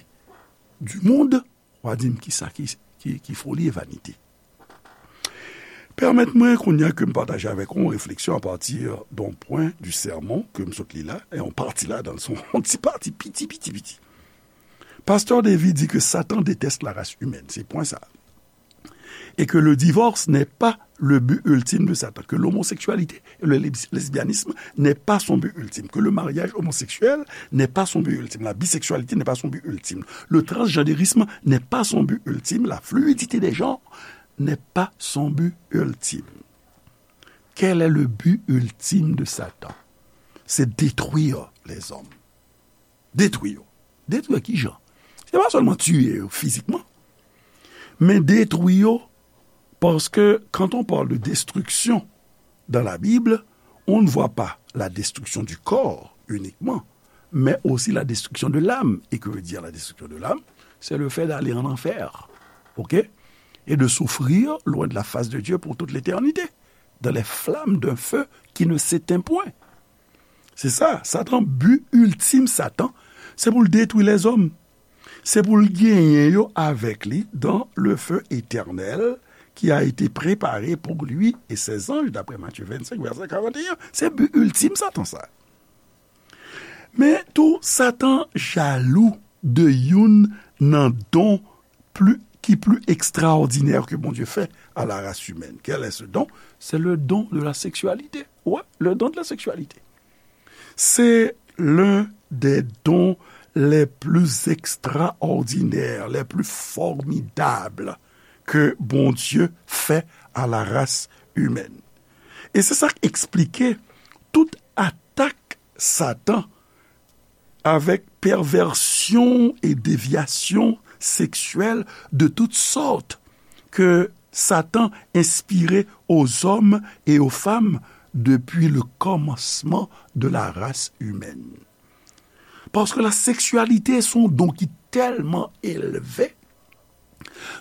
du monde, w a di m kisa ki, ki, ki foli e vanite. Pèmèt mwen kounye a ke m pataje avèk ou yon refleksyon apati d'un point du sermon ke m sot li la, e yon pati la, dan yon ti pati, piti, piti, piti. Pasteur David dit que Satan déteste la race humaine, c'est point ça. Et que le divorce n'est pas le but ultime de Satan, que l'homosexualité et le lesbianisme n'est pas son but ultime, que le mariage homosexuel n'est pas son but ultime, la bisexualité n'est pas son but ultime, le transgenderisme n'est pas son but ultime, la fluidité des genres n'est pas son but ultime. Quel est le but ultime de Satan? C'est détruire les hommes. Detwi yo. Detwi yo ki jan? Se pa sèlman tiye yo fizikman, men detwi yo, parce que quand on parle de destruction dans la Bible, on ne voit pas la destruction du corps uniquement, mais aussi la destruction de l'âme. Et que veut dire la destruction de l'âme? C'est le fait d'aller en enfer, ok? Et de souffrir loin de la face de Dieu pour toute l'éternité, dans les flammes d'un feu qui ne s'éteint point. Se sa, Satan, bi iltim Satan, se pou l detwi lèzòm. Se pou l genyen yo avèk li dans le feu éternel qui a été préparé pour lui et ses anges, d'après Matthieu vingt-cinq, verset quarante et un. Se bi iltim Satan sa. Men tou, Satan jalou de youn nan don pli, ki pli ekstraòdinè ke Bondye fè à la race humaine. Quel est ce don? C'est le don de la sexualité. Ouais, le don de la sexualité. C'est l'un des dons les plus extraordinaires, les plus formidables que Bondye fè à la race humaine. E se sa k eksplike tout atak Satan avec perversion et déviation sexuelle de toutes sortes que Satan inspirait aux hommes et aux femmes depuis le commencement de la race humaine. Paske la seksyalite se yon don ki tèlman elve,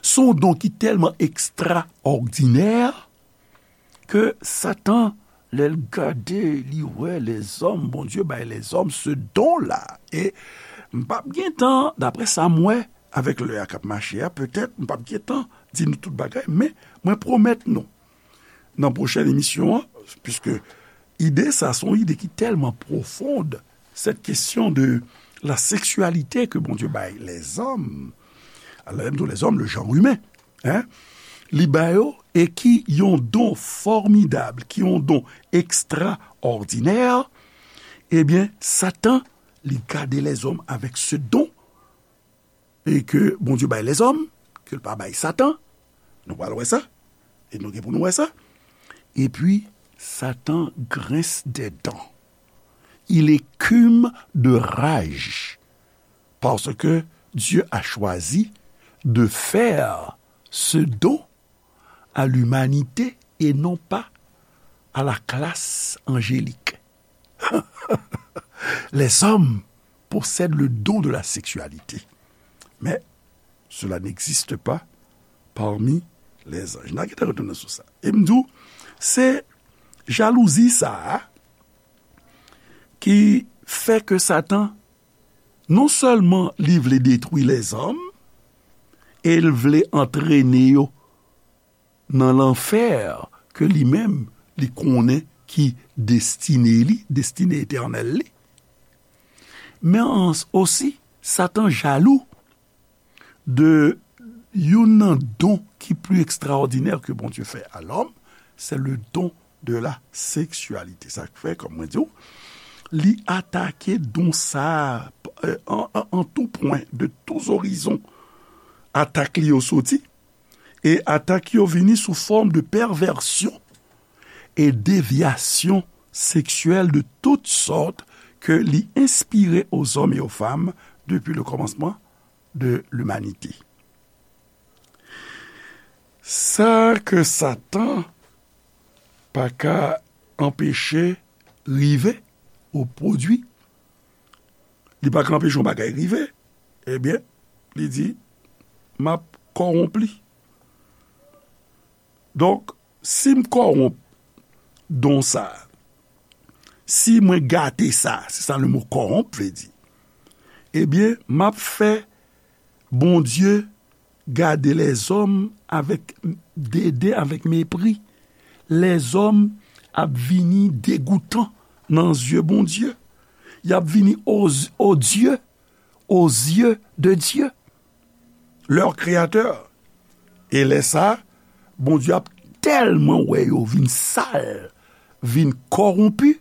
se yon don ki tèlman ekstraòdinè, ke Satan, lè l gade, li wè lèzòm, Bondye bay lèzòm se don la. E m p ap gen tan, daprè sa m wè, avèk lè a k ap mache a, petèt, m p ap gen tan di nou tout bagay, men mwen pwomèt nou, nan pwochèn emisyon an, piske ide sa, se yon ide ki tèlman pwofon, cette question de la sexualité que Bondye bay lèzòm, lè m di lèzòm, le genre humain, hein, li ba yo, e ki yon don fòmidab, ki yon don ekstraòdinè, ebyen, Satan, li gade lèzòm avèk se don, e ke Bondye bay lèzòm, ke l pa bay Satan, nou pral wè sa, e nou gen pou nou wè sa. Epi, Satan grince des dents. Il écume de rage, parce que Dieu a choisi de faire ce don à l'humanité et non pas à la classe angélique. Les hommes possèdent le don de la sexualité, mais cela n'existe pas parmi les anges. N a gentan retounen sou sa. E m di w, se jalouzi sa a ki fè ke Satan, non sèlman li vle detwi lèzòm, e l vle antrene yo nan lanfè ke li menm li konnen ki destine li, destine etènèl li. Men osi, Satan jalou de youn nan don ki pli ekstraòdinè ke Bondye fè a lòm, se le don de la seksyalite. Sa k fè, kòm mwen di w, li atake don sa a, euh, en, en, en tout point, de tous horizons, atak li yo soti, e atak yo vini sou fòm de pèvèsyon e devyasyon seksyèl de tout sòt ke li enspire aux hommes et aux femmes depuis le commencement de l'humanité. Sa ke Satan pa ka anpeche rive ou pwodui, li pa ka anpeche yon bagay rive, ebyen, li di, "M ap kòwonp li." Donk, si m kòwonp don sa, si mwen gate sa, se sa le mo kòwonp vle di, ebyen, m ap fè Bondye gade lèzòm avèk deden, avèk mepri. Lèzòm ap vini degoutan nan zye Bondye. Y ap vini o, o Dieu, aux yeux de Dieu, leur créateur. E lè sa, Bondye ap tèlman wè yo vin sal, vin kòwonpi,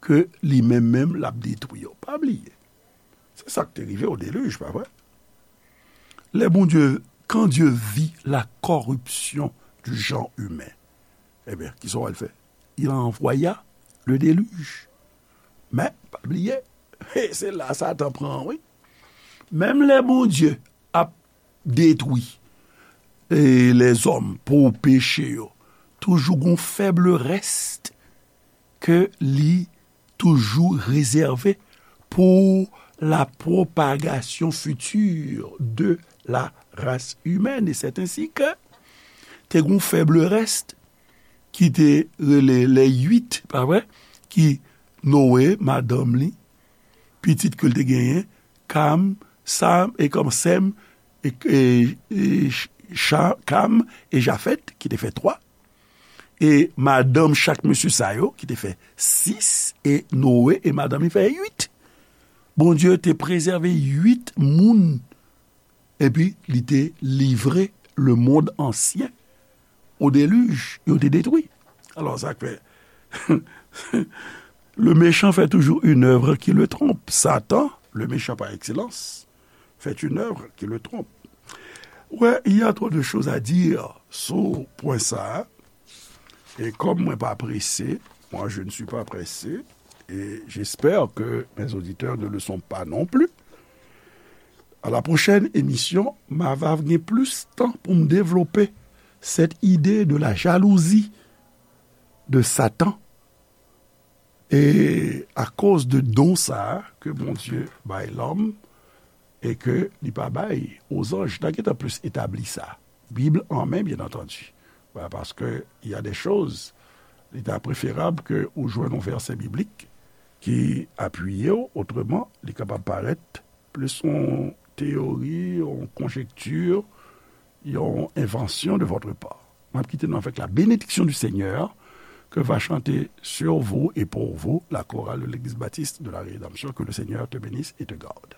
ke li menm menm l ap detwi yo. Pa bliye, se sa k te rive au déluge, pa vre? Lè Bondye, quand Dieu vit la corruption du genre humain, ebyen, kisa w al fè? Il envoya le déluge. Men, pa bliye, se la Satan pran, wi. Menm lè Bondye ap detwi e lèzòm pou peche yo, toujou gon fèb rès ke li toujou rezève pour la propagation future de la race humaine. Et c'est ainsi que te gon fèb rès ki te rele les huit, pa vre? Ki Noe, madanm li, pitit ke l te genyen, Kam, Sam, e kòm Sèm, e, e, e Cha-, Kam e Jafèt, ki te fè twa. E madanm chak mesye sa yo, ki te fè sis, e Noe e madanm li fè uit. Bondye te prezève uit moun, epi li te livre le monde ancien au déluge, yo te detwi. Alò, sa k fè, le méchant fait toujours une œuvre qui le trompe. Satan, le méchant par excellence, fait une œuvre qui le trompe. Ouais, il y a trop de choses à dire sou pwen sa a. E kòm mwen pa prese, moi je ne suis pas pressé, et j'espère que mes auditeurs ne le sont pas non plus. À la prochaine émission, m a va gen plis tan pou m devlope cette idée de la jalousie de Satan. E akoz de don sa a ke Bondye bay lòm e ke li pa bay ozanj, n a gentan plis etabli sa. Bib an men, byen antandi. Ba, paske y a de choz, li ta preferab ke ou jwenn yon vèsè biblik ki apiye w, otreman, li kapab parèt plis yon teyori, yon konjekti, yon envansyon de votre part. M ap kite nou avèk la bénédiction du Seigneur que va chanter sur vous et pour vous la chorale de l'Église baptiste de la Rédemption. Que le Seigneur te bénisse et te garde.